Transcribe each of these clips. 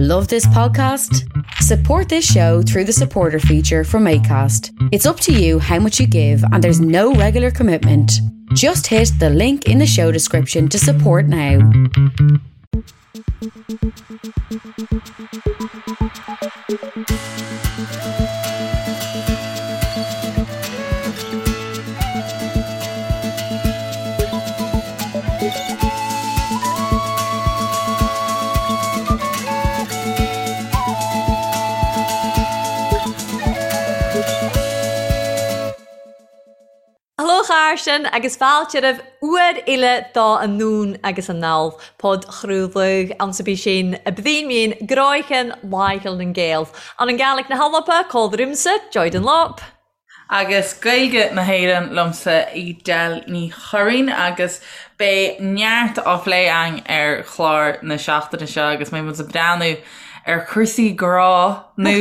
Love this podcast? Support this show through the supporter feature from ACAST. It's up to you how much you give, and there's no regular commitment. Just hit the link in the show description to support now. Hello chàirdean agus fàilte roimh uair eile do Anonn agus Anall, podchraoladh anns a bith sinn a bhíonn mín gnoithean Laicheil nan Gael. Ann an Gàidhlig na h-Alba, còmhla riumsa, Joy Dunlop. Agus Gaeilge na hÉireann liomsa, Edel Ní Churraoin, agus beidh neart á phlé againn ar chlár na seachtaine seo agus beidh muid ag breathnú ar chúrsaí grá, nó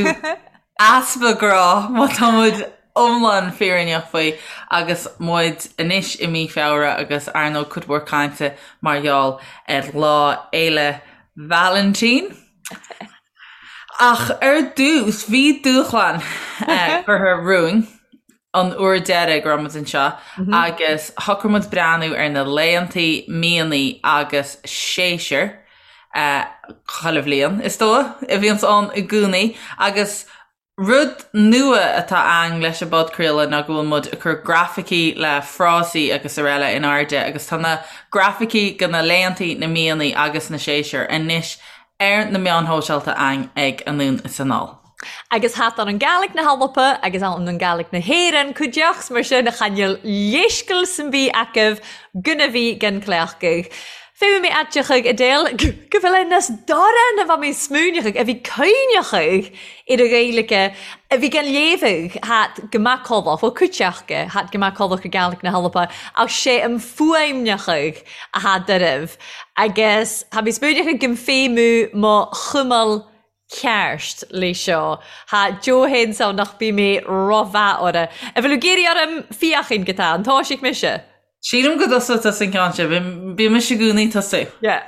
easpa grá má tá muid iomlán fírinneach faoi, agus muid anois i mí Feabhra agus ar ndóigh cuid mhór cainte mar gheall ar Lá Fhéile Vailintín. Ach ar dtús, bhí dúshlán curtha romhainn an uair deiridh go raibh muid anseo agus shocraigh muid breathnú ar na laethantaí, míonnaí agus séasúir chuile bhliain, is dóigh, a bhíonns ann i gcónaí agus Rud nua atá ann leis an bpodchraoladh ná go bhfuil muid ag cur grafaicí le frásaí agus araile in airde agus tá na grafaicí go na laethantaí, na míonnaí agus na séasúir anois ar na meáin shóisialta againn ag Anonn is Anall. Agus tha ann an Gàidhlig na h-Alba agus ann an Gàidhlig na h-Éireann cuideachd 's mar sin chan eil leisgeul sam bith agaibh gun a bhith gan cleachgadh. Fé mé aiteachadh Edel go bhfuil é nas dorán a bha mé smaoineachadh a bhí cuimhneachadh ar a Ghaeilge a bhí gan léamhadh hat go macallach, bhuel cuiteachga hat go macallach ar Gàidhlig na hAlba ach sé an fuaimneachadh a tha doirbh agus tha mi smaoineachadh gum feidhmiú mo chumail ceart le seo. Tha Joe fhéin ann nach bí mé ro-mhath orra. A bhfuil ag iarraidh orm fiachain go tá an toisigh mise? Sílim go dtosóidh tusa an ceann seo. Bíonn mise i gcónaí ag tosú. Yeah.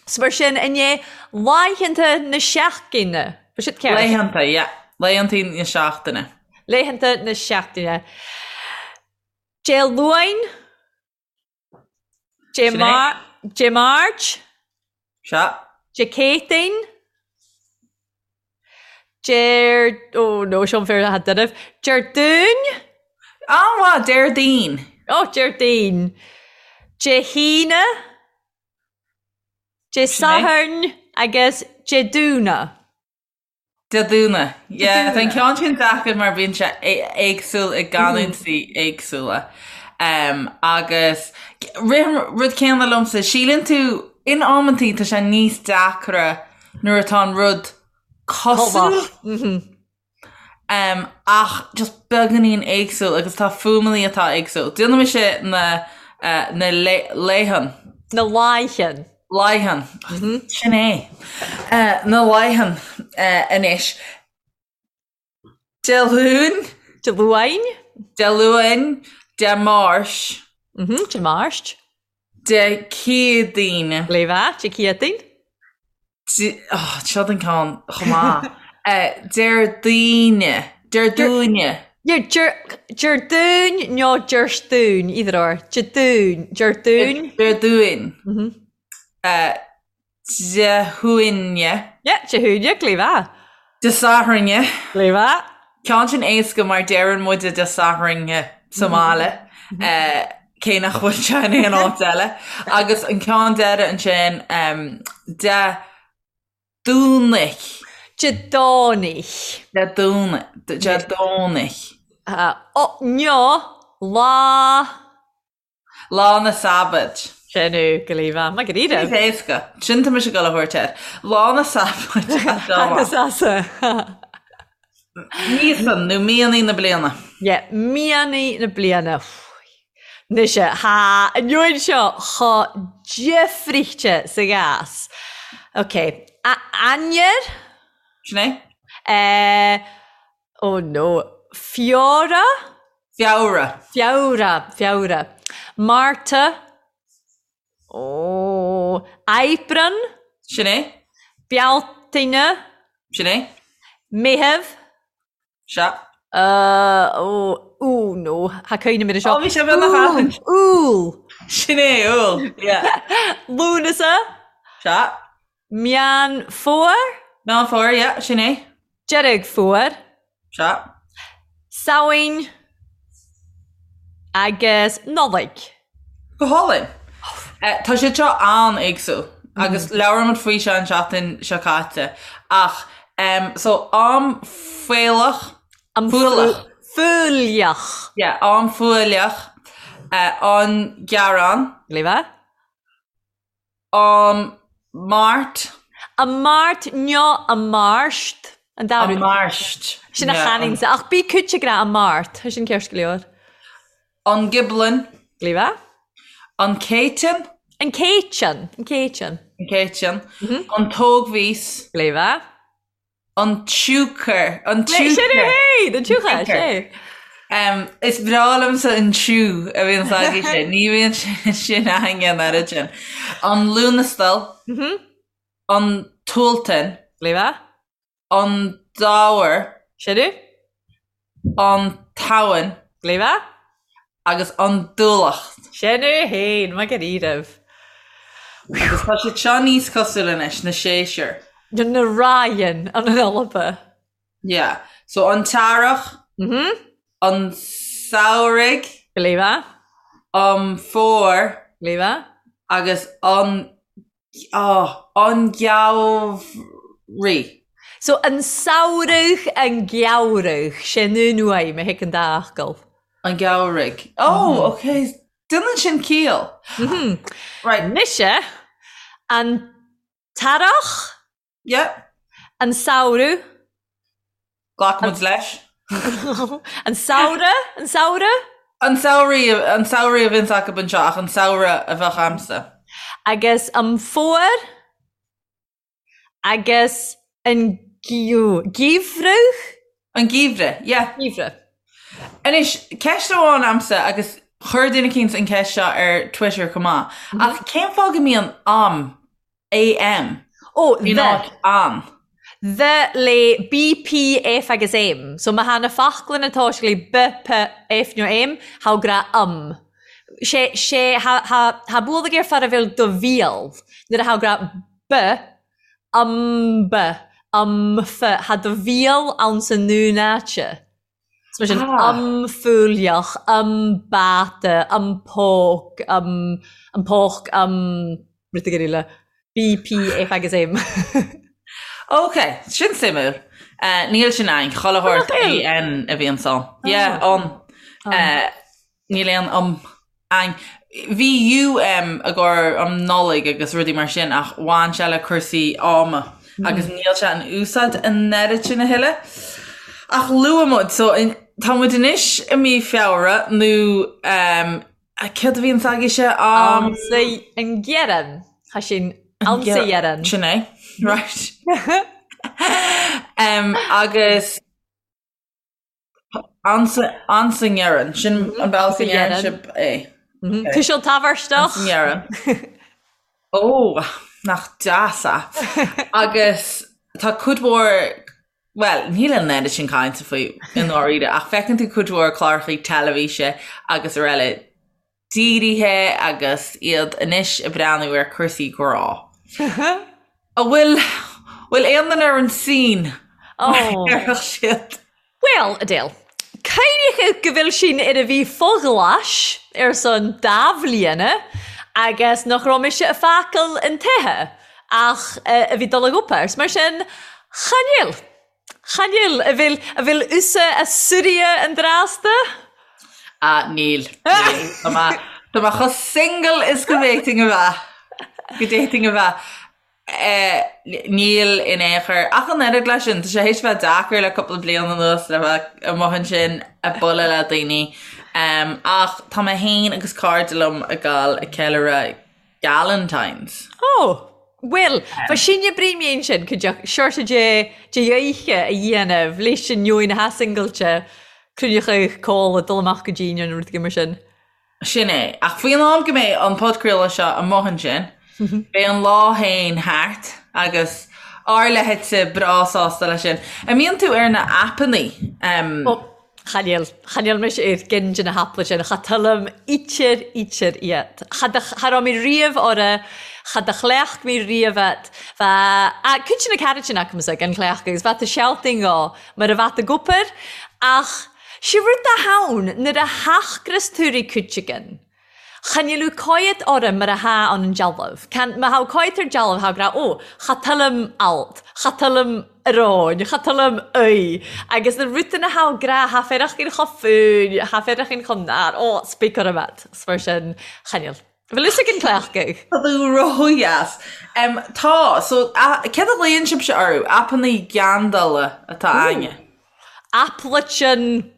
So mar sin, inné, laethanta na seachtaine. Bhí siad ceart? Laethanta, yeah. Laethanta na seachtaine. Laethanta na seachtaine. Dé Luain. Dé Sin é. Dé Máirt. Sea. Dé Céadaoin. Déar, oh no, seo an fear atá doirbh. Déardaoin. An-mhaith, Déardaoin. Oh, Déardaoin. Dé hAoine. Dé Sathairn agus Dé Domhnaigh. Dé Domhnaigh. Yeah, tá an ceann sin deacair mar bíonn sé éagsúil i gcanúintí éagsúla. Um, agus rith an rud céanna liomsa, síleann tú in amantaí tá sé níos deacra nuair atá an rud cosúil. Um, ach just beagáinín éagsúil agus tá fuaimeanna atá éagsúil. Déanfaidh mise na, uh, na laethan. Na laethan. Laethan. Sin é. Uh, na laethan uh, anois. Dé Luain. Dé Luain. Dé Luain. Dé Máirt. Mm Dé Máirt. Dé Céadaoin. Léamh Dé Céadaoin. Seo an ceann chomh maith. Déardaoine. Déardaoine. Déardaoin nó Déardaoin, either or. Déardaoin. Déardaoin. Déardaoin. Dé hAoine. Yeah, Dé hAoine, léamh. Dé Sathairne. Léamh. Ceann sin éasca mar deireann muide Dé Sathairne sa mbaile. Cé nach bhfuil sé in aon áit eile. Agus an ceann deiridh ansin, Dé Domhnaigh. Dé Domhnaigh. Dé Domhnaigh. Dé Domhnaigh. Nó lá. Lá na Sabad. Sin é go líofa. Maith go díreach. Níos éasca. Sin tá mise ag dul a thabhairt air. Lá na Sabad. Agus Míosa nó míonnaí na bliana. Yeah, míonnaí na bliana. Anois tha an uair seo cho difrichte sa ghas. Ok, Eanair? Sin é. Eh, oh no, Feabhra? Feabhra. Feabhra, Feabhra. Márta. Ó, Aibreán. Sin é. Bealtaine. Sin é. Meitheamh. Sea. Ó, ó, no, tha cuimhne mire seo. Ó, bhí sé beagnach aithint. Iúil. Sin é, Iúil. Yeah. Lúnasa. Sea. Meán Fómhair. Meán Fómhair, yeah, sin é. Deireadh Fómhair. Sea. Samhain agus Nollaig. Go hálainn. Tá siad seo an-éagsúil agus labhair muid faoi seo an tseachtain seo caite ach so am faolach, Am fualach. Fuailleach. Yeah, am fuailleach, an Gearán. Léamh. Am Máirt. Am Máirt nó am Máirt. An dá rud. Am Máirt. Sin a chanann Ach bí cúite gra am Máirt. Tá sin ceart go leor. An Ghiblin. Léamh. An Céiteann. An Céiteann. An Céiteann. An Céiteann. An Tógmhís. Léamh. An tsiúcar. An tsiúcar. Sin é féin! An tsiúcar, sé. Is breá liomsa an tsiú a bhíonn agaibhse. Ní bhíonn sin againne an oiread sin. An Luanastal. An tSualtain. Léamh. An Dobhar. Sin é. An tSamhain. Léamh. Agus an Dúlacht. Sin é féin, maith go raibh. Agus tá siad seo níos cosúla anois, na séasúir. Na Ryan an Alba. Yeah. So an tEarrach. Mhm. An Samhraidh. Léamh. An Fómhar. Léamh. Agus an Oh, an Geimhreadh. So an samhradh, an geimhreadh, sin an uaim a thig an dá fhocal. An Geimhreadh. Oh, ok. Déanann sin ciall. Right. Mise, an t-earrach. Yeah. An samhradh. Glac muid leis. An samhradh? An samhradh? An samhraidh, an samhraidh a bhíonns acu anseo ach an samhradh a bheadh a'msa. Agus an fómhar agus an geimhreadh? An geimhreadh, yeah. Geimhreadh. Anois, ceist amháin a'msa agus chuir duine eicínt an ceist seo ar Twitter chomh maith, ach cén fáth go mbíonn am AM. Ó, In the. áit an. The le B, P, F agus M. So má tha na foclainn a' toiseachd le B, P, F nó M, tha gra um. Sé, sé, tha, tha, tha bualadh air far a bheil do bhéal nuair a tha gra B, um B, um F, tha do bhéal ann sa ndún áite. So mar sin, am fuailleach, am bata, am póc, am, am póc, am rud éigin eile. B, P, F agus M. Ok, sin suimiúil. Níl sin ann, chuile shórt AN a bhíonn ann. Yeah, an. Níl aon um ann. Bhí UM i gcomhair um Nollaig agus rudaí mar sin ach bhain sé le cúrsaí ama agus níl sé in úsáid an oiread sin a thuilleadh. Ach luaigh muid, so tá muid anois i mí Feabhra nó um, céard a bhíonn agaibhse? Um, Ansa an Ghearran. Tá sin ansa Ghearran. Sin é, right. um, agus Ansa nGearran. Sin an bealach a ndeireann sibh é. Tuiseal tabhartach. Ansa nGearran. Ó, nach deas é. Agus tá cuid mhór, bhuel, níl an oiread sin cainte faoi i ndáiríre, ach feiceann tú cuid mhór cláracha teilifíse agus araile dírithe agus iad anois ag breathnú ar cúrsaí grá. An bhfuil, bhfuil aon duine ar an scene mar a déarfadh siad? Bhuel, Adele, cuimhnigh go bhfuil sinn ar a bhí fo-ghlais ar son dá bhliana agus nach raibh mise a fácail an tithe ach a bhí dul ag obair. Mar sin, chan fhuil. Chan fhuil, a bhfuil, a bhfuil usa a suiria an drásta? Ah, níl, níl. Tá mé, tá mé chomh single is go bhféadfainn a bheith. Go bhféadfainn a bheith. Eh, níl in aon chor. Ach an oiread leis sin, tá sé théis bheith deacair le cúpla bliain anuas le bheith amuigh ansin ag bualadh le daoine. Em, ach tá mé féin agus cairde liom ag gabháil ag ceiliúradh Galentine's. Ó! Bhuel, bha sinne brí sin, cuideachd seoirse de de oidhche a dhéanamh leis an neoin atha singilte, cruinneachadh cóla, dul amach go dínn nó rud éigin mar sin. Sin é. Ach faoin am go mbeidh an podchraoladh seo amuigh ansin, beidh an lá féin thart agus. Ár leithéidse breá sásta leis sin. An mbíonn tú ar na aipeannaí? Ó, chan eil, chan eil mise ar gceann de na haipeanna sin, cha toilim ítear, ítear iad. Cha do, cha raibh mé riamh orra, cha do chleacht mé riamh iad. Bha, a, cuid de na cairt sin acamsa gan chleachtadh agus bheadh tú sealtainn dhó mar a bheadh ag obair ach sé rud dá thonn nuair a thachgras tú ri cuid again. Chan eil thu coimhead orm mar a tha ann an dealbh. Can, ma tha coimhead ar dealbh tha ag rá, ó, cha tuillim alt, cha tuillim aráin, cha tuillim aoi. Agus na rudain a tha ag rá, tha féarachinn cho fúinn, tha féarachinn cho nar, ó, speak orm at. 's mar sin, chan eil. Bhfuil fhios ag an cleachtadh? Tá tú ródheas. Tá, so, céard a ghlaonn sibhse orthu? Aipeannaí geandála atá a'inne. Aipleitean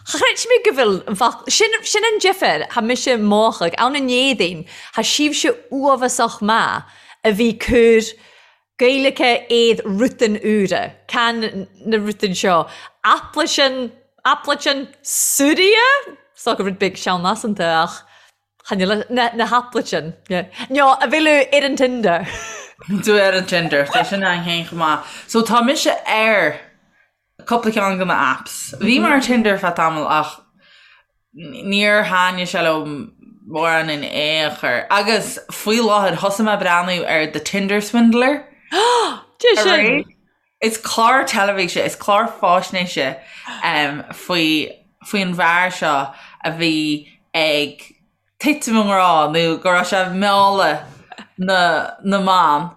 Chreid mé go bhfuil an focal, sin, sin an difear, tha mise mòchadh, ann an Éadaoin, tha sibhse uabhasach maith a bhí cur Gaeilge éad rutan úra, can na rutan seo, aipleitean, aipleitean Suria? Is dócha rud beag sean-lasanta ach chan eil, na, na haipleitean, yeah. No, a bhfuil ar an Tinder. Tú ar an Tinder, tá sin ann féin chomh maith. So tá mise ar cúpla ceann de na apps. Bhí mé ar Tinder ar feadh tamaill ach níor thaitnigh sé liom mórán in aon chor. Agus faoi láthair thosaigh mé ag breathnú ar The Tinder Swindler. Dé sin! Is clár teilifíse, is clár faisnéise um, faoi faoin bhfear seo a bhí ag titim i ngrá nó go raibh sé ag mealladh na, na mban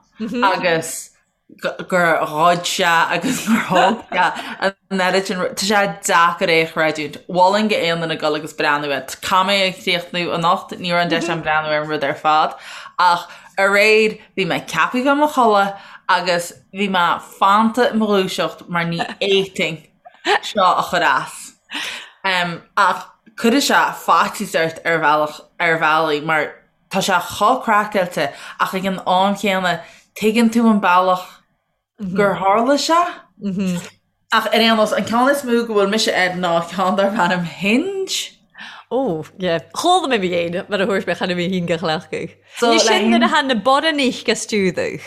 agus gur ghoid sé agus gur thóg sé an oiread sin tá sé deacair é a chreidiúint. Mholfainn d'aon duine dul agus breathnú air. Caithfidh mé é a chríochnú anocht, ní raibh an deis agam breathnú ar an rud ar fad ach aréir bhí mé ceaptha bheith i mo chodladh agus bhí mé fanta i mo dhúiseacht mar ní fhéadfainn seo a chur as. Ach cuirfidh sé faitíos ort ar bhealach ar bhealaí mar Tá sé chomh craiceáilte ach ag an am chéanna tuigeann tú an bealach gur tharla sé. Ach ar aon nós, an ceann is mó go bhfuil mise air ná ceann darb ainm Hinge. Ó, yeah. Chuala mé mé mar a thuairisc mé cheana mé féin go chleachtadh. Ní sin nuair a tha na borrannaich ag stiúdadh.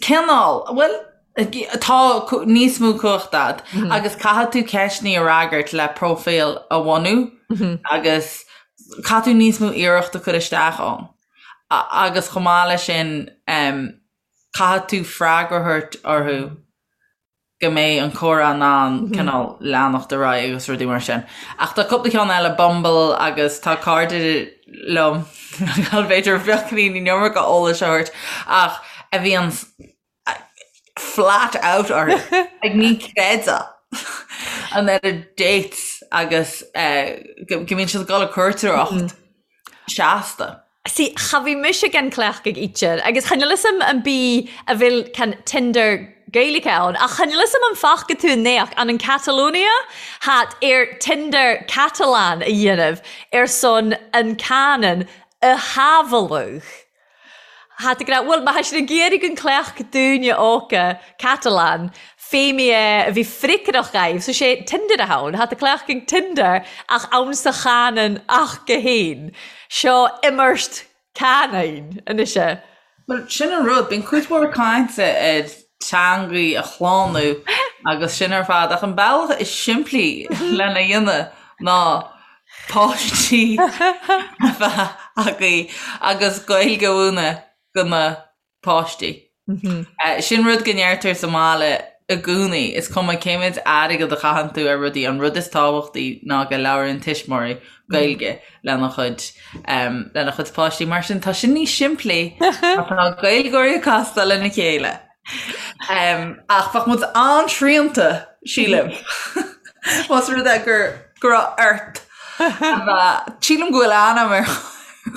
Cineál. Bhuel, tá níos mó cumhachta a'd agus caithfidh tú ceisteanna a fhreagairt le próifíl a bhunú agus caithfidh tú níos mó iarracht a chur isteach ann. Agus chomh maith leis sin, caithfidh tú freagra a thabhairt orthu. go mbeidh an comhrá in ann cineál leanacht ar aghaidh agus rudaí mar sin. Ach tá cúpla ceann eile, Bumble agus tá cairde liom, b'fhéidir beagáinín an iomarca eolais a thabhairt, ach a bhíonn flat out orthu, like ní chreidfeá an oiread dates agus go mbíonn siad ag dul ag cuairteoireacht seasta. See, cha bhí mise gan cleachtadh ítear, agus chan fhuil fhios a'm an bí a bhfuil can Tinder Gaeilge ann, ach chan fhuil fhios a'm an bhfaca tú an naoch an an Catalonia hat ar Tinder Catalan a dhéanamh ar son an canann a shábháladh. Hat ag rá, bhuel, má thá siad ag iarraidh an cleacht dúinne óca Catalan, fé mé é a bhí freagrach dhaoibh, so sé Tinder a tha ann, tha tú cleachtadh Tinder ach ann sa chanann ach go haon. Seo imirt canine anois é. Bhuel, sin an rud, bíonn cuid mhór cainte ar teangaí a shlánú agus sin ar fad, ach an bealach is simplí lena dhéanamh ná páistí a bheith agaibh agus Gaeilge a mhúineadh do na páistí. Sin rud go ndeirtear sa mbaile i gcónaí, is cuma cé méid airgead a chaitheann tú ar rudaí, an rud is tábhachtaí ná go labhraíonn tuismitheoirí Gaeilge lena chuid lena chuid páistí. Mar sin tá sin níos simplí má tá Gaeilgeoirí ag castáil lena chéile. Ach bheadh muid an-srianta, sílim, más rud é gur go raibh ort a bheith, sílim go bhfuil ainm ar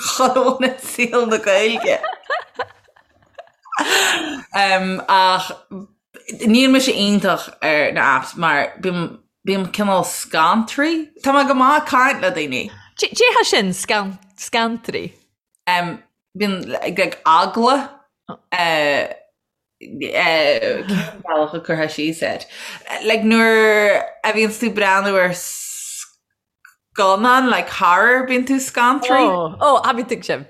chuile dhuine i saol na Gaeilge. Ach níl mise iontach ar na apps mar bím bím cineál scantraí. Tá mé go maith ag caint le daoine. Cé hé sin, scantraí? Bíonn like eagla cén bealach a gcuirfeá síos air? Like nuair a bhíonns tú breathnú ar scannán like horror bíonn tú scantraí. Ó, ó, tha mi tuigsim.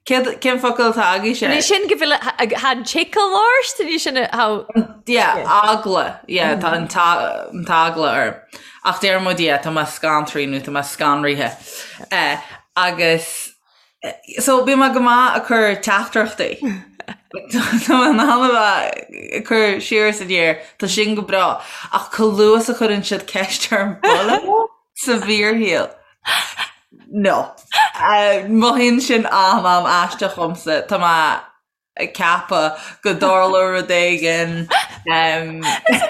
Céad, cén focal atá agaibhse? Ní sin go bhfuil tá an tickle ort, ní sin how... Yeah, eagla, yeah, tá an t-eagla orm. Ach deir muid, yeah, tá mé scantraithe nó tá mé scanraithe. Eh, agus, so bíonn mé go maith ag cur teachtaireachtaí. Tá mé in ann a bheith ag cur siar is aniar, tá sin go breá. Ach chomh luath is a chuireann siad ceist orm bualadh leo sa bhfíorshaol. No. Mothaíonn sin an-an-aisteach dhomsa. Tá mé ag ceapadh go dtarlóidh rud éigin. Is an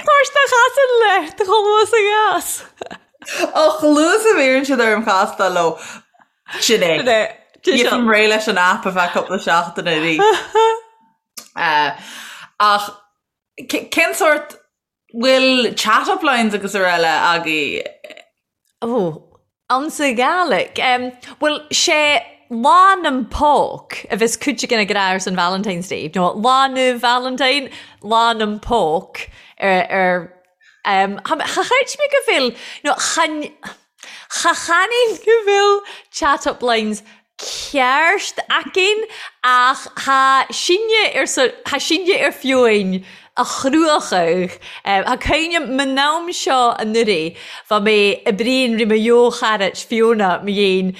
toirt a chasann leat chomh luath is a ghas. Ó, chomh luath is a bhíonn siad orm castáil leo. Sin é. Sin é. Gheobhainn réidh leis an aip ar feadh cúpla seachtain arís. Ach cén sórt bhfuil chat-up lines agus araile agaibh? Ó, ansa Gàidhlig. Bhuel, sé Lá nam Póc a bheas cuid againn ag rá ar son Valentine's Day. Nó Lá na Valentine, Lá nam Póc ar, ar, cha chreid mé go bhfuil, nó chan, Cha channainn go bhfuil chat up lines ceart againn ach tha sinne ar tha sinne ar fiúin a chruachadh. Tha cuimhne a'm an am seo anuraidh bha mé a' bruidhinn ri mo dheo-charait Fiona mo dhein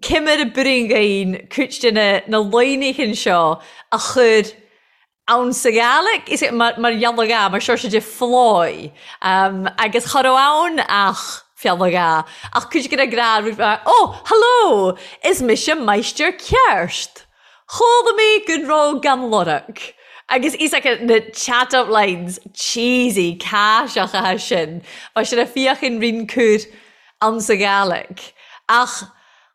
ciamar a b'fhuirinn dhainn cuid de na na laighneachan seo a chur ann sa Ghàidhlig, is mar gheall mar seo de phláigh agus cha raibh ann ach feallagá ach cuid de na gnáth mar oh hello is mise máistir ceart chuala mé go raibh gan lorg agus is like na chat up lines cheesy caiseacha sin mar sin a fiachan rinn cur ann sa Ghàidhlig ach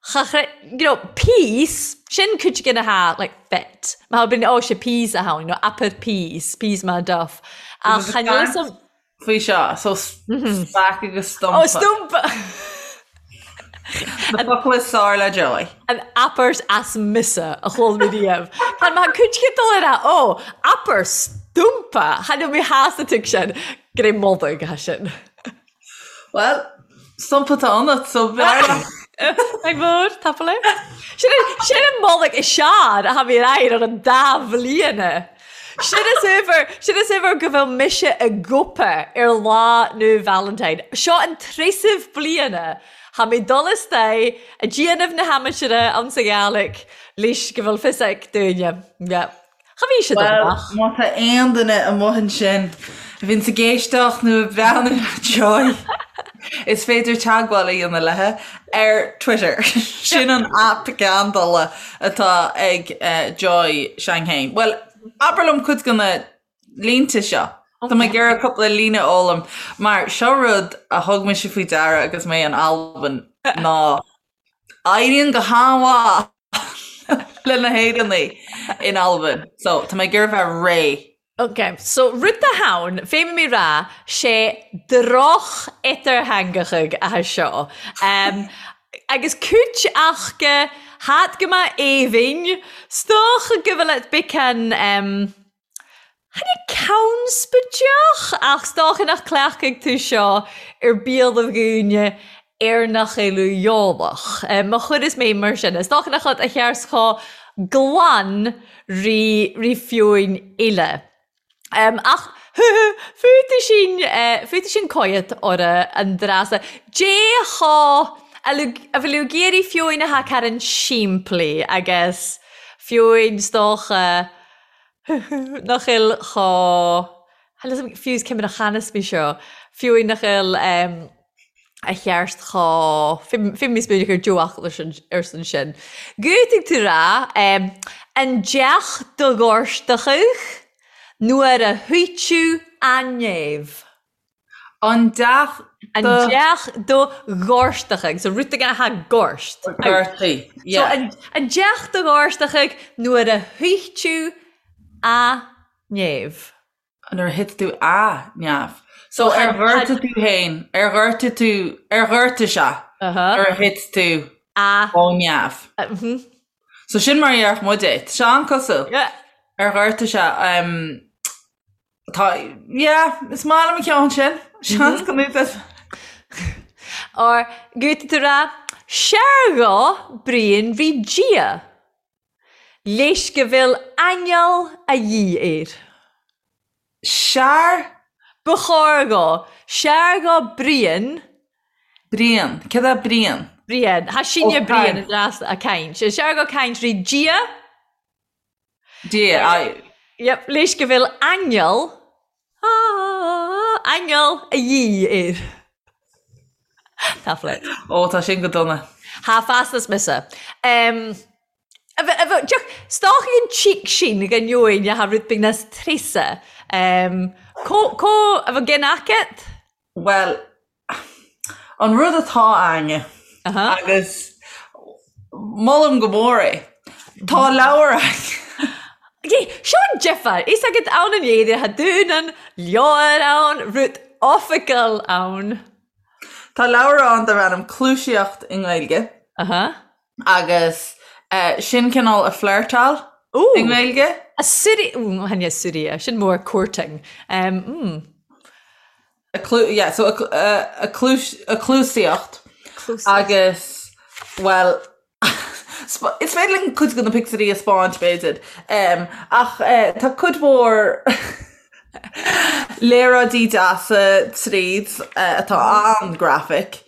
Cha chre, you know, peace, sin cuid de na ha, like, fit. Má bhíonn, oh, sé peace a tháinig, nó upper peace, peace má duff. Ach chan fhios a'm. Faoi seo, so speak agus stumpa. Oh, stumpa! Na focla is fearr le Joy. An uppers as mise a chuala mé riamh. Tá má cuid de dul ar a, oh, upper stumpa! Chan fhuil mé shásta tuig sin, go raibh moladh aige sin. Bhuel, stumpa atá ionat, so b'fhearr leat. Ag mór, tapadh leat. Sin sin an moladh is sean a tha mi air ar an dà bhliana. Sin is uimhir, sin is uimhir go bhfuil mise i gcoipeadh ar Lá na Valentine. Seo an treasamh bliana tha mi dol astoigh a' déanamh na h-aimsire anns a' Ghàidhlig leis go bhfuil fios ag daoine. Yeah. Cha bhí siad Bhuel, amach. má tá aon duine amuigh ansin a bhíonns ag éisteacht nó ag breathnú ar Joy, is féidir teagmháil a dhéanamh léi ar Twitter. Sin an aip geandála atá ag Joy s'againn féin. Bhuel, abair liom cuid de na línte seo. Tá mé ag iarraidh cúpla líne a fhoghlaim, mar seo rud a thug mise faoi deara agus mé in Albain ná Éiríonn go han-mhaith le na hÉireannaigh in Albain. So, tá mé ag iarraidh bheith réidh. Ok, so rud a tha ann, fé mi rá, sé droch-eatartheangachadh atha seo. Um, agus cúit acha hat go maith aoibhinn, 's dócha go bhfuil et becan um, Chan é conspóideach ach 's dócha nach cleachtfaidh tú seo ar biallaibh dhaoine ar nach eil eolach. Má chuireas mé mar sin, is dócha nach iad a chears chomh glan ri ri fiúin eile. Ach fúthu sin, fúthu sin coiat orra an dreasa. Dé chomh, a bhfuil ag iarraidh fiúin a tha caran simplí agus fiúin 's dócha, Nach eil chomh, fiú is cé mar a chanas mé seo, fiú nach eil a cheart chomh, fé mé spéideach ar deo-fhocal ar son sin. Gútaigh tú rá, an deach do ghortachadh nuair a thuiteadh an néamh. An deach do. An deach do ghortachadh. So rud éigin atá gort. Gortaí, yeah. So an deach do ghortachadh nuair a thuit tú a neamh. Nuair a thit tú a neamh. So ar ghortaigh tú féin, ar ghortaigh tú, ar ghortaigh sé nuair a thit tú a ó neamh. So sin mar a dhéarfadh muid é. Tá sé an-cosúil. Yeah. Ar ghortaigh sé. Tá, yeah, is maith liom an ceann sin. Seans go mbeidh. Or gúta tú rá, Seargá Brian bhí Dia. Leis go bhfuil aingeal a dhíth air. Sear. Ba chóir dhó. Sear dhó Brian. Brian. Céard é Brian? Brian. Tha sinne Brian a dreas a' cainnt. Sear dhó cainnt ri Dia. Dia, aye. Yep, leis go bhfuil aingeal, aingeal a dhíth air. Tá flit. Ó, tá sin go dona. Tha feasta 's mise. Um, 's dòcha an cheek sin gun eòin a tha rud beag nas treasa. Um, co, co, a bheil gin agat? Bhuel, an rud atá a'inne, agus molaim go mór é, tá leabhar a'inn. Seo an difear, is agat ann an éadair, tha dùn an leabhar ann, rud oifigeil ann. Tá leabhar ann darb ainm Cluaisíocht i nGaeilge. Agus sin cineál a flirtáil i nGaeilge. A suirí, chan e suirí, sin mór courting. A clu, yeah, so a, a, cluas, a cluasaíocht agus, bhuel, is féidir linn cuid de na pictiúirí a 'speáint, b'fhéidir, ach tá cuid mhór léaráidí deasa tríd atá an-graphic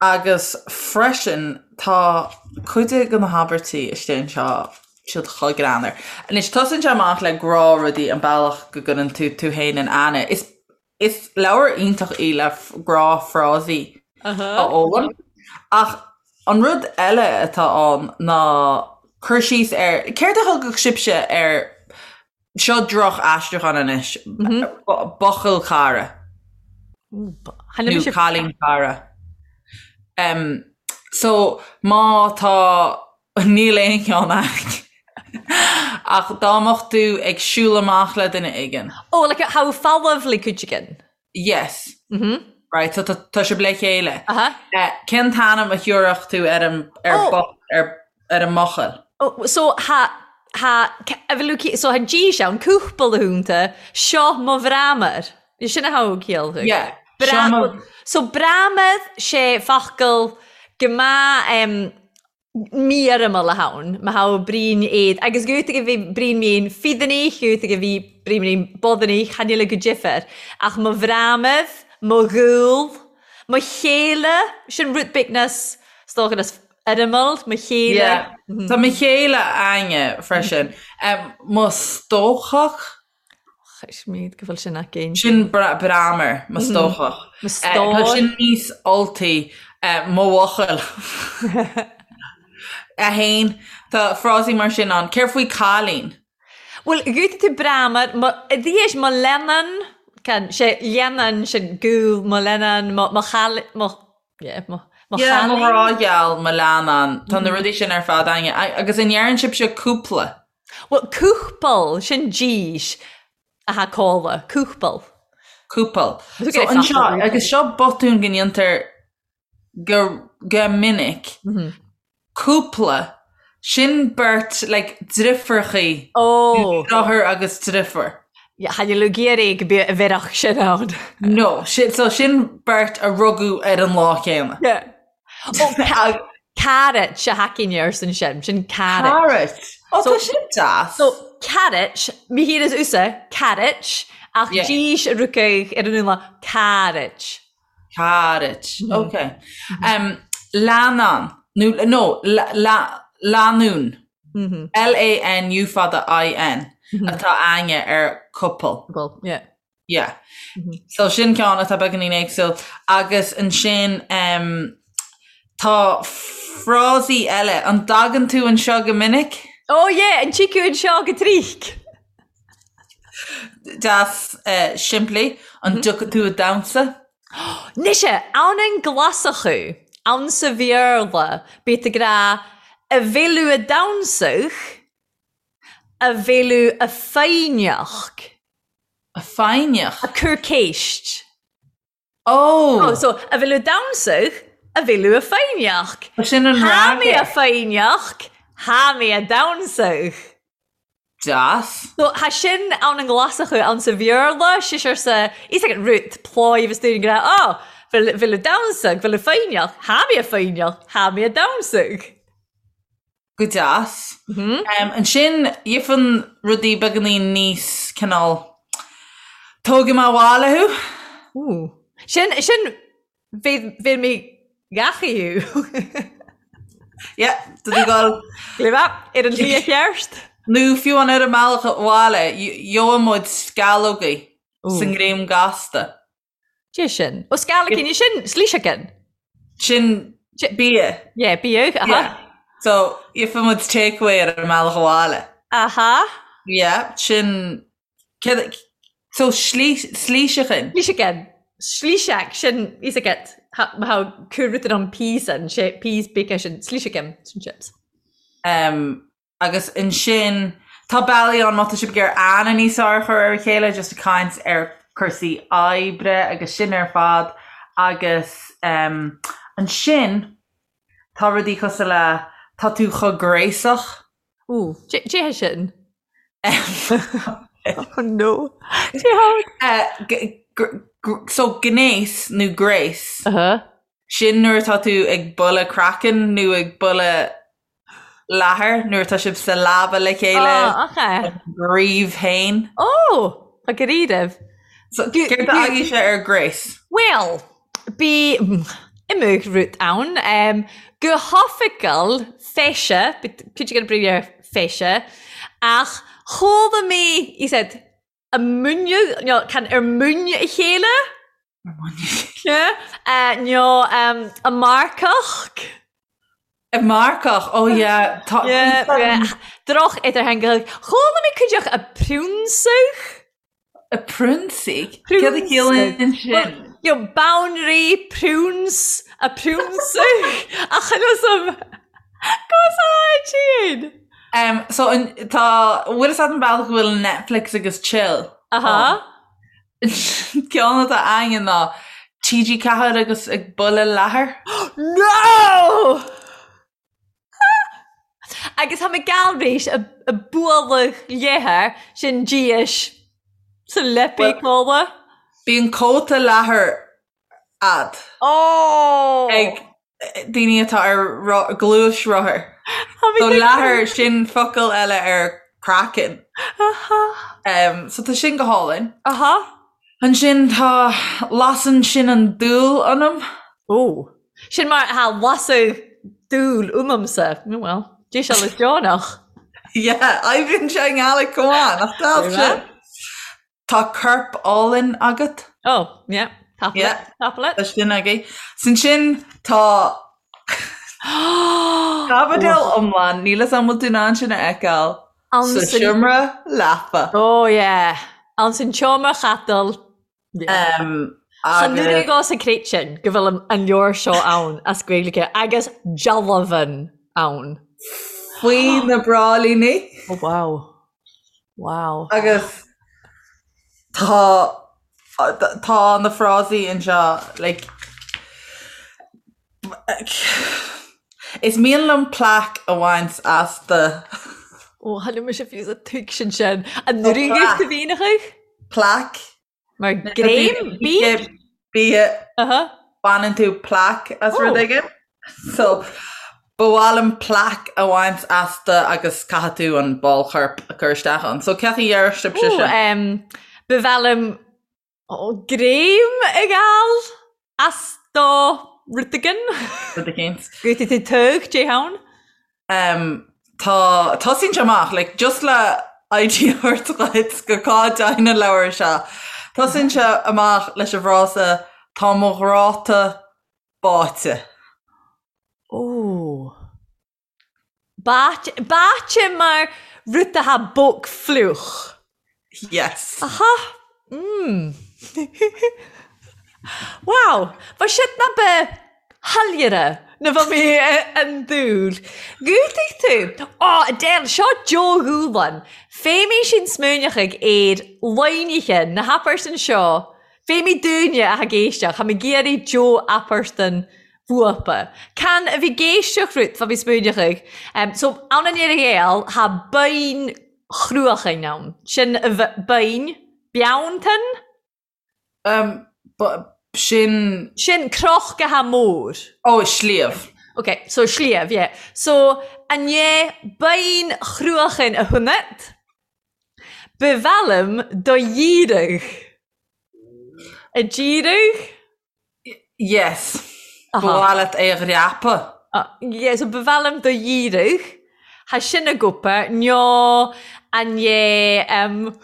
agus freisin tá cuid de na habairtí istigh anseo siad chomh greannmhar. Anois, tosaíonn sé amach le gnáthrudaí, an bealach go gcuireann tú tú féin in aithne. Is is leabhar iontach í le gnáthfhrásaí a fhoghlaim. Ach an rud eile atá ann ná cur síos ar, céard a thugadh sibhse ar, seo droch-aistriúchán anois, buachaill cara nó cailín cara. So má tá Níl aon cheann a'inn. Ach dá mbeadh tú ag siúl amach le duine éigin. Oh, like tha thu fallamh le cuideigin. Yes. Mm-hmm. Right, so tá tá sibh le chéile. Aha. Eh, cén t-ainm a thiúrfadh tú ar an ar Oh. bo- ar ar an mbuachaill? Oh, so tha tha a bhfuil tú so tha dís ann cúpla húnta seo mo bhreamar. Sin a thogh ciall thú. Yeah. Seo mo So breamad sé focal go maith um, mífhoirmiúil a tha ann, má tha Brian éad, agus gútaigh a bhí Brian mín fídannaigh, gútaigh a bhí Brian mín bodannaigh, chan eil go difir, ach mo bhreamad, mo dhúil, mo chéile, sin rud beag nas, 's dócha nas fhoirmiúil, mo chéile. Yeah. Tá mo chéile a'inne freisin. Mo stócach. Chreidmid go bhfuil sin againn. Sin breamar, mo stócach. Mo stór. Tá sin níos Ultaí, mo bhuachaill. 1, Tá frásaí mar sin ann. Céard faoi cailín? Bhuel, gútaigh tú breamar, mo, dhéis mo leannán, can, sé leannán sin gúl, mo leannán, mo, mo chail, mo, yeah, mo, mo Yeah, mo ghrá gheal, mo leannán. Tá na rudaí sin ar fad a'inne. Agus an ndeireann sibhse cúpla? Bhuel, cúpal, sin dís atá cóla, cúpal. Cúpal. So anseo, agus seo botún go ndéantar go, go minic, cúpla, sin beirt, like, driofúrachaí, Ó! deartháir agus driofúr. Chan eil thu ag iarraidh go bheadh bheadh sin ann. No, sin, so sin beirt a rugadh ar an lá céanna. Yeah. Ó, carrot a tha againne arsan sin, sin carrot. Carrot. Ó, tá sin deas. So, carrot, mi thír is usa, carrot, ach dís a rucaidh ar an úna, carrot. Carrot, ok. Um, leannán, nó, no, lánúin, L-A-N U fada I-N, atá a'inne ar couple. Couple, yeah. Yeah. So sin ceann atá beagáinín éagsúil. Agus ansin em, tá frásaí eile. An dtagann tú anseo go minic? Oh yeah, an dtig thu anseo gu tric. Deas eh, simplí. An dtiocfaidh tú a' damhsa? Mise, ann an Glaschú, ann sa Bhéarla, bíod ag rá a bheil thu a' damhsadh, a bheil thu a' foighneachd. A foighneach? A cur céist. Oh! Oh, so, a bheil thu a' damhsadh, a bheil thu a' foighneachd. Sin an Tha mi fhreagra. a' foighneachd, tha mi a' damhsadh. Deas. So, tha sin ann an Ghlaschú, ann sa Bhéarla, sisear sa, is ag an rud, pláigh agus dúinn go raibh, oh, bheil, bheil thu a' damhsadh, bheil thu foighneachd, tha mi a' foighneachd, tha mi a' damhsadh. Go deas. Ansin, gheibheann rudaí beagáinín níos cineál tógfaidh mé abhaile thú. Ooh. Sin, sin, bheidh mé gach thú. Yeah, do tú gabháil. Léim ar an tslí cheart. Nó fiú an ar an mbealach abhaile, gheobhaidh muid sceallógaí sa ngreim gasta. Dé sin. Ó sceallógaí, sin slíseagan. Sin bia. Yeah, bia, aha. Yeah. So, gheobhaidh muid takeaway ar an mbealach abhaile. Aha. Yeah, sin... Céard... So, slíseachan. Slíseachan. Slíseach, sin, is agat, how cur an peas an, sé peas bacon sin, slíseachan, sin chips. Um, Agus ansin, tá bealaí ann má tá sibh ag iarraidh aithne níos fearr a chur ar a chéile, just ag caint ar cúrsaí oibre agus sin ar fad. Agus em, ansin, tá rudaí cosúil le tá tú chomh gréasach. Ooh, cé hé sin? Oh no. Cé hé? Eh, so gnéas nó gréas, sin nuair atá tú ag bualadh craiceann nó ag bualadh leathair nuair atá sibh sa leaba le chéile. Oh, okay. Bríomh féin. Oh, tá go ríomh. So, céard a fhaighidh sé ar gréas? Well, bí imig rud ann. Um, go hoifigiúil feise, cuid an brí ar feise, ach chuala mé, he said, a múineadh, nó can ar múineadh a chéile? Ar múineadh a chéile. Yeah. Nó a marcach. A marcach, oh yeah. Tá. Yeah, yeah. Droch idirtheangach. Chuala mé cuideach a priúnsaigh. A priúnsaigh? Céard a chiallaíonn sin? You know, boundary, prunes, a priúnsaigh. Ach chan fhios a'm. Go sáid Um, so an, tá, bhfuil fhios a'd an bealach go bhfuil Netflix agus chill? Aha. Ceann atá againn ná TG4 agus ag bualadh leathair. No! Agus tá mé gal réis a, a bualadh leathair sin díis sa leipí cóla. Bíonn cóta leathair a'd. Oh! Ag daoine atá ar gluaisrothar. So leathar sin focal eile ar craiceann. Aha. So tá sin go hálainn. Aha. Ansin tá lasann sin an dúil ionam. Ó. Sin mar atá lasadh dúil uaimse. Well, dé sé le deonach. Yeah, oibríonn sé i nGaeilge chomh maith, nach deas sin? Tá corp álainn agat. Oh, yeah. Tap yeah. it. Tap it. Tá sin agaibh. Sin sin tá caibidil iomlán, níl 'fhios a'm bhfuil tú in ann sin a fheiceáil sa seomra leapa. Oh yeah. Ann san tseomra chapaill. Yeah. Um, Chan nuair a sa crét sin go bhfuil an leabhar seo ann as Gaeilge agus dealbhan ann. Faoi na bráillíní. Oh wow. Wow. Agus tá tá na frásaí anseo like Is mian liom plaic a bhaint as do. Ó, tháinig mise fiú sa tuigsin sin. An nduine do mhíneachaidh? Plaic. Mar greim? Bia? Bia. Baineann tú plaic as rud éigin. So, ba mhaith liom plaic a bhaint as do agus caithfidh tú an ball choirp a chur isteach ann. So, cén chaoi a déarfadh sibhse sin? Ba mhaith liom greim a fháil as do rud éigin. Rud éigin. Go dtí tú tug, dé ann. Um, tá, tosaíonn sé amach, like, just le idea a thabhairt dhuit go cá dtéann an leabhar seo. Tosaíonn sé amach leis an bhfrása tá mo ghráta báite. Ó. Báite, báite mar rud atá bog fliuch. Yes. Aha. Mm. Wow. Ba siad na ba shoiléire na bheadh mé an dúil. Dhútaigh tú. Ó, Adele, seo Joe Dhúlan. Féimidh sin smaoineachaidh ar loinithe na hapairtan seo. Féimidh dúinne a ag éisteacht, tha mi ag iarraidh Joe apairtan bhuapa. Can a bhí ag éisteacht rút fá mí smaoineachaidh. So, ann an Earra Ghael, tha beinn chruachain ann. Sin a beinn, beanntan? Sin. Sin croch go ha mór. Ó, sliabh. Ok, so sliabh, yeah. So, an é beinn chruachan a hunnat? Ba mhaith liom do dhíreadh. A dhíreadh? Yes. Ba mhaith leat é a dhreapadh. Yeah, so ba mhaith liom do dhíreadh. Tha sin a gcopa, nó an é, um,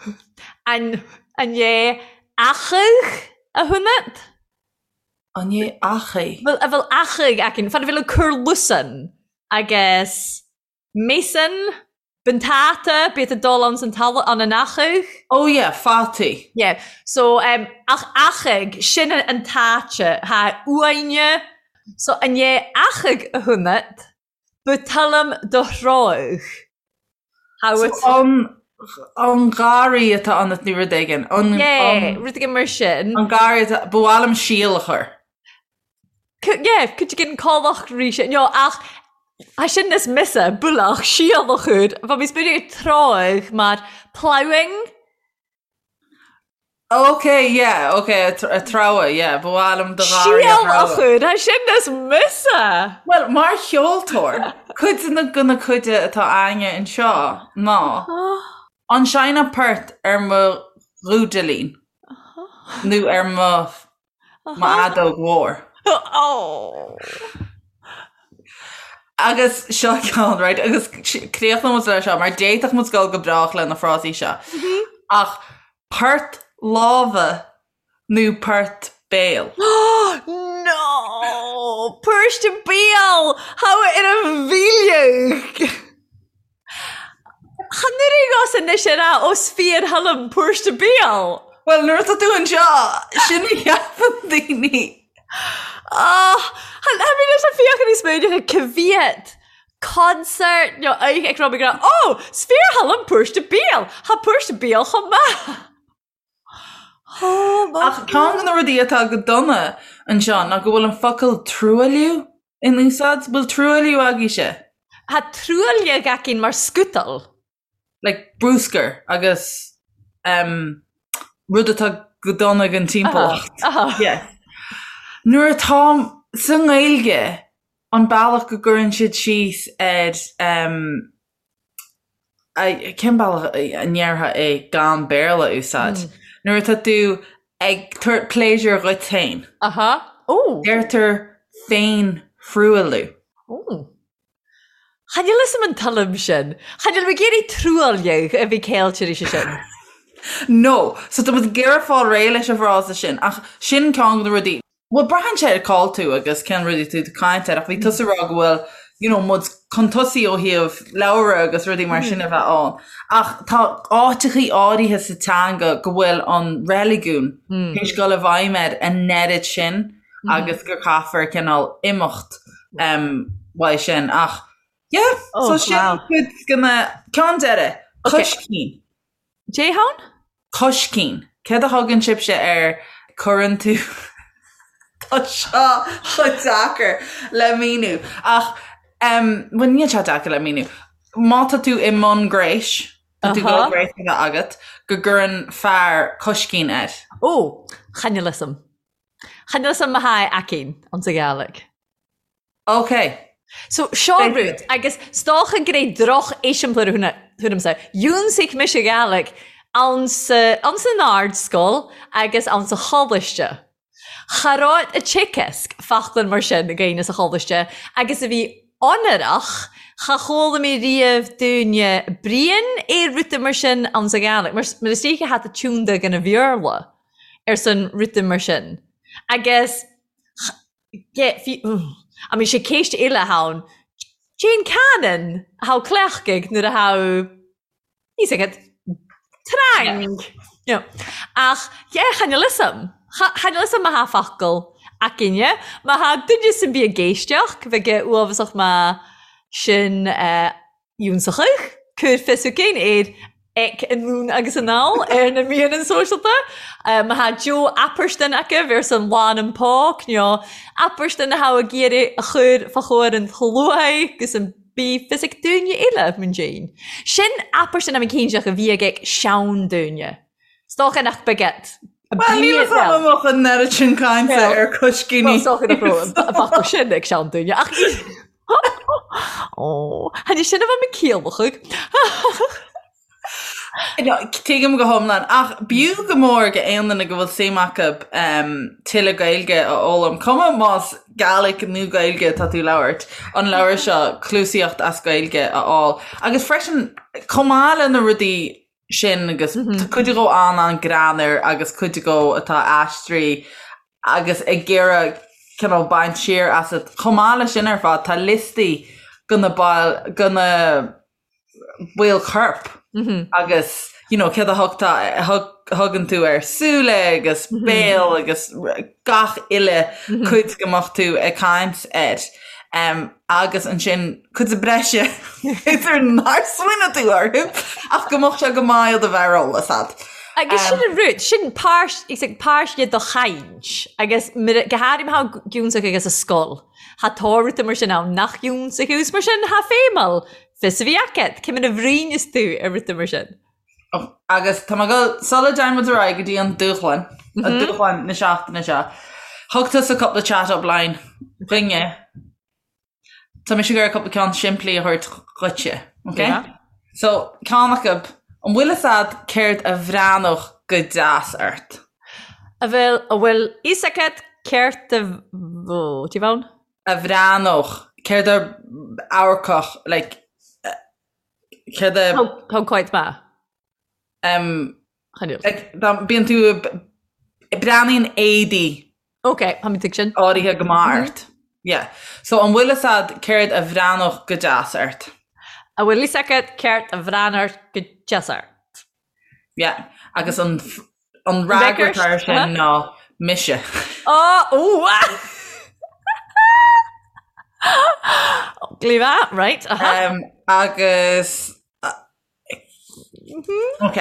an, an é achaidh a hunnat? An é achaidh? Bhfuil, a bhfuil achaidh aicinn, fan a bhfuil ag cur lusan agus Mason, B'an t-ata, bíod ag dul ann san talamh, ann an achaidh. Oh yeah, fataí. Yeah, so um, ach achaidh, sin an t-áite, tha uaine, so an é achaidh a hunnat, bu tuilleam do threabhadh. How so it... an, an garraí atá ionat nó rud éigin. An, yeah, rud éigin mar sin. An garraí atá, ba mhaith liom síol a chur. Yeah, cuid den cálach rí sin, no, ach tha sin is mise, bualach, síol a chur, bha mi smaoineamh ar tráigh mar ploughing. Ok, yeah, ok, a treabhadh, yeah, ba mhaith liom do gharraí a Síol a chur, tha sin is mise! Bhuel, mar cheoltóir, cuid de na de na cuide atá againne anseo ná an seinnfeá port ar mo dhúidilín nó ar mo M'fheadóg mhór. Agus seo ceann, right, agus críochnóidh muid leis seo, mar d'fhéadfadh muid dul go brách le na frásaí seo. Ach port láimhe nó port béil? No! Port béil! How ar a mhíleadh! Chan oireadh os anois ar a os fíor thoilim púirste béal. Bhuel, nuair atá tú anseo, sin a cheapann daoine. Ah, chan tha mi leis a' feuchainn air smaoineachadh ca mhead concert nó oidhche ag rá mi ag rá, Ó, 's fíor thoilim púirste béal! Tha púirste béal chomh maith! Ach ceann de na rudaí atá go dona anseo ná go bhfuil an focal truailliú in úsáid. Bhfuil truailliú agaibhse? Tha truailleag againn mar scútal. Like bruscar agus um, rud atá go dona don timpeallacht. Yes. Nuair atá sa nGaeilge an bealach go gcuireann siad síos ar um, Cén bealach a ndéarfá é gan Béarla a úsáid? Nuair atá tú ag tabhairt pléisiúr dhuit féin. Aha. Ó! Deirtear féin-thruailliú. Ó. Chan fhios a'm an tuilleam sin. Chan fhuil mé ag iarraidh truailleag a bhí ceilte arís sin. No. So tá muid ag iarraidh fáil réidh leis an bhfrása sin ach sin ceann de na rudaí. Bhuel, braitheann sé ar cá'il tú agus cén rudaí tú ag caint air ach bhí tusa ag rá go bhfuil you know muid chun tosaigh ó thaobh leabhra agus rudaí mar sin a bheith ann. Ach tá áiteachaí áirithe sa teanga go bhfuil an reiligiún théis dul i bhfeidhm air an oiread sin agus gur caithfear cineál imeacht um, uaidh sin. Ach yeah, so sin cuid de na ceann deiridh, coiscín. Dè tha ann? Coiscín. Céard a thugann sibhse air cuireann tú Tá seo chomh deacair le míniú. Ach em bhuel níl sé deacair le míniú. Má tá tú i mbun gnéis, tá tú ag dul gnéas a bheith agat, go gcuireann fear coiscín air. Ó, chan fhuil fhios a'm. Chan fhuil fhios a'm ma tha e againn anns a' Ghàidhlig. Ok. So, seo rud, agus 's dòcha gur e droch-eiseamplair a th'anamsa. Dhiúnsaich mise Gàidhlig ann sa, ann san ardscoil agus ann sa choláiste. Cha robh a' teagasc fachlann mar sin againn sa choláiste agus a bhí onrach, cha chuala mi riamh daoine bruidhinn air ruda mar sin ann sa Ghàidhlig, mar, mar is dóiche tha tú tiúnda gon a Bhéarla ar son ruda mar sin. Agus I mean, sé ceist eile atá ann. Cén canann a tha cleachtaidh nuair a tha fhios agat trang. You know. Ach yeah, chan fhuil fhios a'm. Chan fhuil fhios a'm ma tha focal againne. Ma tha duine san bith ag éisteacht, bheadh uathbhasach ma sin eh, Ionsachadh, cuir fios chugainn ar ag anonn agus anall ar na meadhanan sóisealta. Ma tha Joe Apairsdin agaibh ar son Lán an Póc nó Apairsdin a tha ag iarraidh a chur fá chomhair an tsluaigh agus an bí fios ag daoine eile mun déin. Sin Apairsdin am cinnteach a bhí ag sean-daoine. 'S dócha nach beag. Bhuel, níl a fhios agam an mbeadh an oiread sin cainte ar coiscíní. Well, sócha nach raibh an focal sin ag seanduine ach Ó, tháinig sin a bheith mé ciallachadh. No, tuigim go hiomlán, ach b'fhiú go mór go aon duine go bhfuil suim acu tuilleadh Gaeilge a fhoghlaim, cuma más Gàidhlig nó Gaeilge atá tú ag labhairt, an leabhar seo, Cluasaíocht as Gaeilge a fháil. Agus freisin, chomh maith le na rudaí sin agus tá cuid dhó an-an-greannmhar agus cuid dhó atá aistrithe agus ag iarraidh cineál baint siar asat. Chomh maith leis sin ar fad, tá liostaí go na baill, go na baill choirp agus you know céard a thugtar thugann tú ar súile agus béal agus gach uile cuid go mbeadh tú ag caint air. Um, agus ansin cuid breise b'fhéidir nár smaoinigh tú orthu ach go mbeadh sé go maith iad a bheith ar eolas a'd. Agus sin an rud, sin páirt, is ag páirt de do chaint agus go háirithe má thá giúnsach agus a scoil. Thá tórramh mar sin ann nach iúnsa thú 's mar sin thá feidhmeal fios a bhí agat cé mar a bhruíneas tú ar rud mar sin. Agus tá mé ag dul, sula dtéann muid ar aghaidh go dtí an dúshlán, an dúshlán na seachtaine seo, thug tusa cúpla chat up line dhuinne. Tá mise ag iarraidh cúpla ceann simplí a thabhairt dhuitse, ok? So, ceann acu, an bhfuil fhios a'd céard a bhreathnódh go deas ort? A bhfuil, a bhfuil fhios agat céard a, ó, do you bhonn? A bhreathnódh, céard a amharcfadh, like, céard a. Thug quite maith. Um, like, dá bíonn tú, breathnaíonn éadaí. Ok, tá mé tuig sin. Áirithe go maith ort. Yeah. So an bhfuil fhios a'd céard a bhreathnódh go deas ort? A bhfuil fhios agat céard a bhreathnódh go deas ort? Yeah, agus an an fhreagra atá air sin ná mise. Ó, ó, Leave that, right. Uh-huh. Um, agus mm-hmm. Ok.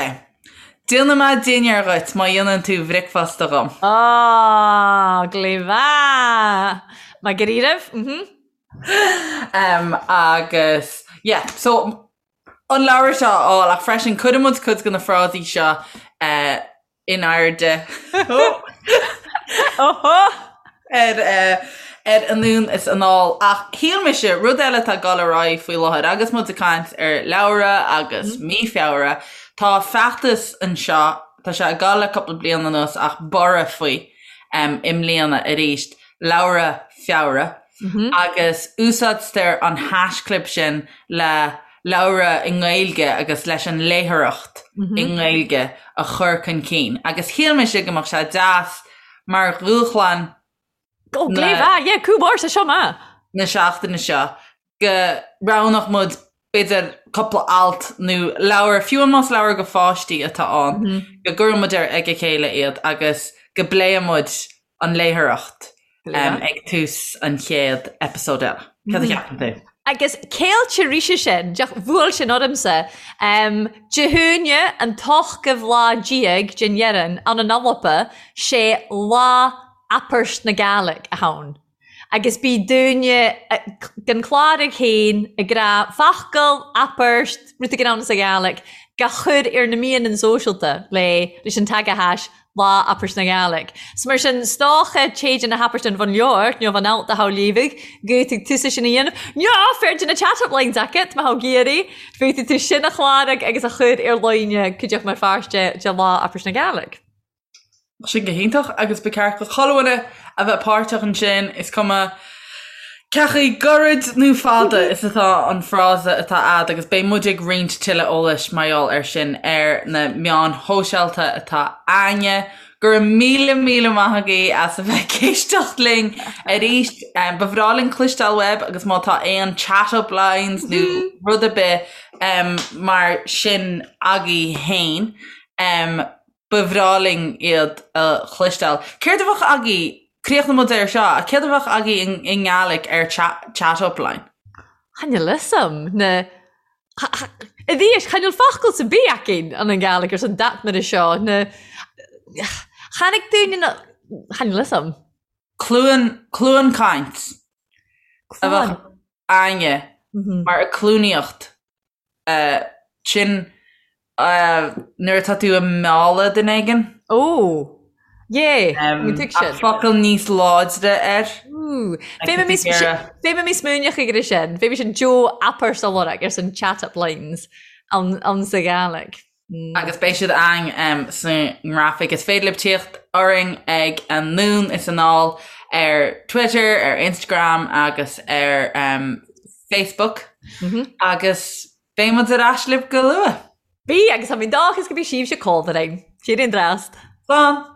Déanfaidh mé dinnéar dhuit má dhéanann tú bricfeasta dhom. Ó, glíomha! Má go raibh? Mm-hmm. Um, agus yeah, so an leabhar seo a fháil ach freisin cuirfidh muid cuid de na frásaí seo in airde ar ar anonn is anall ach shíl mise rud eile atá ag dul ar aghaidh faoi láthair agus muid ag caint ar leabhra agus mí Feabhra tá feachtas anseo tá sé ag dul le cúpla bliain anuas ach borradh faoi i mbliana arís leabhra Feabhra agus úsáidtear an haischlib sin le leabhra i nGaeilge agus leis an léitheoireacht i nGaeilge a chur chun cinn. Agus shíl mise go mbeadh sé deas mar dhúshlán na seachtaine seo go roghnódh muid b'fhéidir cúpla alt nó leabhar, fiú amháin más leabhar go pháistí atá ann, go gcuirfidh muid ar ag a chéile iad agus go bpléifidh muid an léitheoireacht ag tús an chéad eipeasóid eile. Cad a cheapann tú? Agus céilte ríse sin, deoch bhuail sin ormsa. Dé hAoine an t-ochtmhadh lá déag den Dheireann ann an Alba, sé Lá Aprst na Gàidhlig a th' ann. Agus bí daoine den Chláraigh féin ag rá focal, aprst, rud éigin ann sa Ghàidhlig, ga chur ar na meadhanan sóisealta le leis an tagathais Lá Aprst na Gàidhlig. 'S mar sin, 's dócha téid na hapairte an bhun leabhar, nó bhun alt a thogh léamhadh, go bhféadfaidh tusa sin a dhéanamh, nó féidir na chat-up lines agat, má thogh iarraidh, féadfaidh tú sin a chláraigh agus a chur ar líne cuideachta mar pháirt de Lá Aprst na Gàidhlig. Sin go hiontach agus ba cheart do chuile dhuine a bheith páirteach ansin, is cuma cé chomh gairid nó fada is atá an frása atá a'd agus beidh muid ag roinnt tuilleadh eolais mar gheall air sin ar na meáin shóisialta atá a'inne. Go raibh míle míle maith agaibh as a bheith ag éisteacht linn arís. Ba bhreá linn cloisteáil uaibh agus má tá aon chat up lines nó rud ar bith mar sin agaibh féin, Ba bhreá linn iad a chloisteáil. Céard a bheadh agaibh, críochnóidh muid air seo, ach céard a bheadh agaibh i nGàidhlig ar chat up line? Chan eil fhios a'm, na, a bhí, chan eil focal sa bith againn an an Gàidhlig ar son dat mar seo, na, chonaic daoine na, chan eil fhios a'm. Cluain, cluain caint a bheadh a'inne mar a cluanaíocht sin nuair atá tú ag mealladh duine éigin. Ó! Yeah, mi tuig sin. Focal níos láidre air. Fé mi smuaineach ag sin, Fé sin Joe Apper sa lorg ar san chat-up lines ann sa Ghàidhlig. Agus beidh siad ann sa ngrafaic. Is féidir libh tíocht orainn ag Anonn is Anall ar Twitter, ar Instagram agus ar Facebook. Agus beidh muid ar ais libh go luath. Bí, agus tá mé dóchas go bhí sibhse cómhrainn. Siar an drast. Slán!